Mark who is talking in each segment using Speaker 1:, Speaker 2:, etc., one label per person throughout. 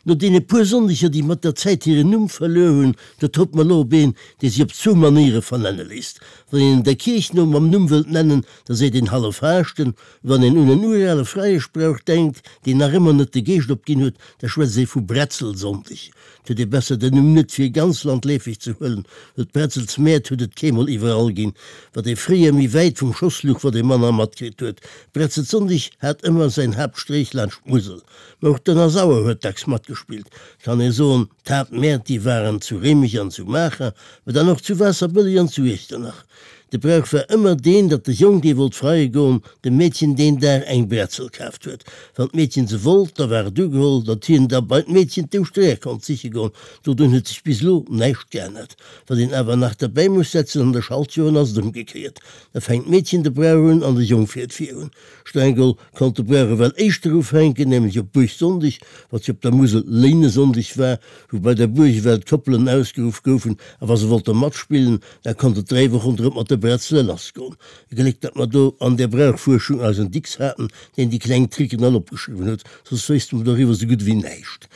Speaker 1: No deene puer Sonndeger, déi mat der Zäit hiren Numm verluer hunn, do trëppt mer elo op een, dee sech op zwou Manéiere vernenne léisst. Wann een en der Kierch no mam Numm wëllt nennen, da seet een Halleffaaschten. Wann een un en urale Freieschbrauch denkt, deen nach ëmmer net de Geescht opginn huet, da schwätzt ee vu Bretzelsonndeg. 't huet ee besser den Numm net fir ganz landleefeg ze huelen, well d'Bretzelsmäert huet et keemol iwwerall ginn. Wat ee fréier méi wäit vum Schoss luch, wat ee manner matkritt huet. Bretzelsonndeg hat ëmmer säin Haaptstréich laanscht d'Musel. Mä och d'Ënnersauer huet dacks matgespillt. Et kann ee soen, d'Haaptmäert, déi waren zu Réimech an zu Maacher, mä dann och zu Waasserbëlleg an zu Iechternach. De Brauch war ëmmer deen, datt de Jong, dee wollt freie goen, dem Meedchen deen Dag eng Bretzel kaaft huet. Wann d'Meedchen se wollt, da war et ugeholl, datt hien da bei d'Meedchen d'Ouschtereer konnt siche goen. Dodrun huet sech bis elo näischt geännert. Wat een awer nach derbäi muss setzen, an de Schaltjoren ass et ëmgekéiert. Da fänkt d'Meedchen de Brauch un an de Jong fiert virun. Streng geholl konnt de Brauch ewell éischter ufänken, nämlech op Buergsonndeg, wat jo op der Musel Léinesonndeg war, wou bei der Buerg ewell d'Koppelen ausgeruff goufen, a wa se wollte matspillen, da konnt et 3 Wochen drop mat de Bretzele lassgoen. E Gléck, datt mer do an der Brauchfuerschung eisen Dicks haten, deen déi kleng Tricken all opgeschriwwen huet, soss wéisste mer doriwwer sou gutt ewéi näischt.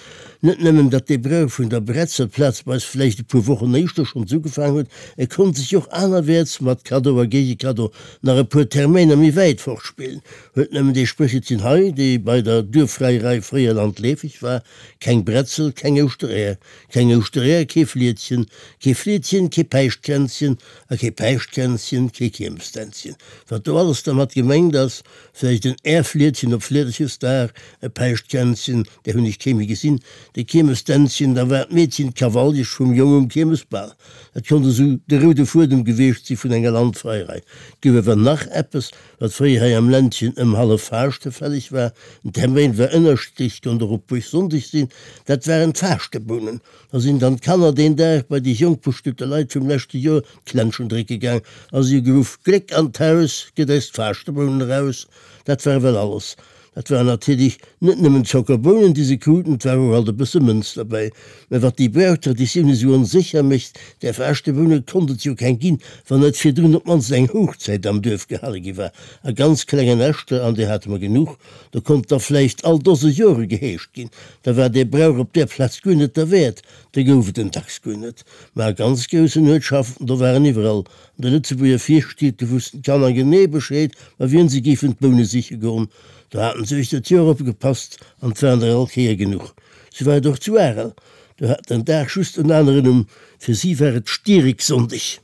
Speaker 1: Net nëmmen, datt dee Brauch vun der Bretzel plazweis vläicht e puer Wochen éischter schonns ugefaang huet, e konnt sech och anerwäerts, mat Kaddo a Géigekaddo, nach e puer Termäiner méi wäit fortspillen. Huet nëmmen dee Spréchelchen hei, dee bei der Duerffreierei fréier landleefeg war, Keng Bretzel, keng Ouschtereer, keng Ouschtereer, kee Flietchen, kee Flietchen, kee Päischtkränzchen a kee Päischtkränzchen, kee Kiermestänzchen. Wat do alles dermat gemengt ass, Vläicht en Äerfliedchen op Fliederchesdag, e Päischtkränzchen, där hunn ech kee méi gesinn, de Kiermesdänzchen, da war d'Meedchen d'Kavaljesch vum Jong um Kiermesbal. Dat konnt esou de roude Fuedem gewiescht si vun enger Landfreierei. Et gouf awer nach eppes, wat fréier hei am Ländchen ëm Halleffaaschte fälleg war, den Termäin war ënnerschiddlech, konnt och op Buergsonndeg sinn, dat waren d'Faaschtebounen. Da sinn dann d'Kanner deen Dag bei déi jonk bestuete Leit vum leschte Joer d'Klenschen drécke gaang a si hu geruff, Gléck an d'Haus, gëtt eis d'Faaschtebounen eraus! Dat war ewell alles. Dat waren natierlech net nëmmen Zockerbounen, déi se kruten, et war och alt e bësse Mënz derbäi. Mä wat déi Brauchtraditioun esou onsécher mécht, där Faaschteboune konnt et jo keng ginn, wann net virdrun op d'mannst eng Hochzäit am Duerf gehale gi war. A ganz klengen Näschter, an där hate mer genuch, do konnt da vläicht all Dose Jore geheescht ginn. Da war dee Brauch op där Plaz guer net derwäert, da gouf et en dacks guer net. Mä a ganz groussen Uertschaften, do waren iwwerall an de Lëtzebuerger Virstied, do wussten d'Kanner genee Bescheed, bei wien se géifen d'Boune siche goen. Do haten se uechter d'Joer opgepasst an 't waren der all Kéier genuch. Sou war et och zu Arel, do hat den Dag just en aneren Numm, fir si war et Stiereksonndeg.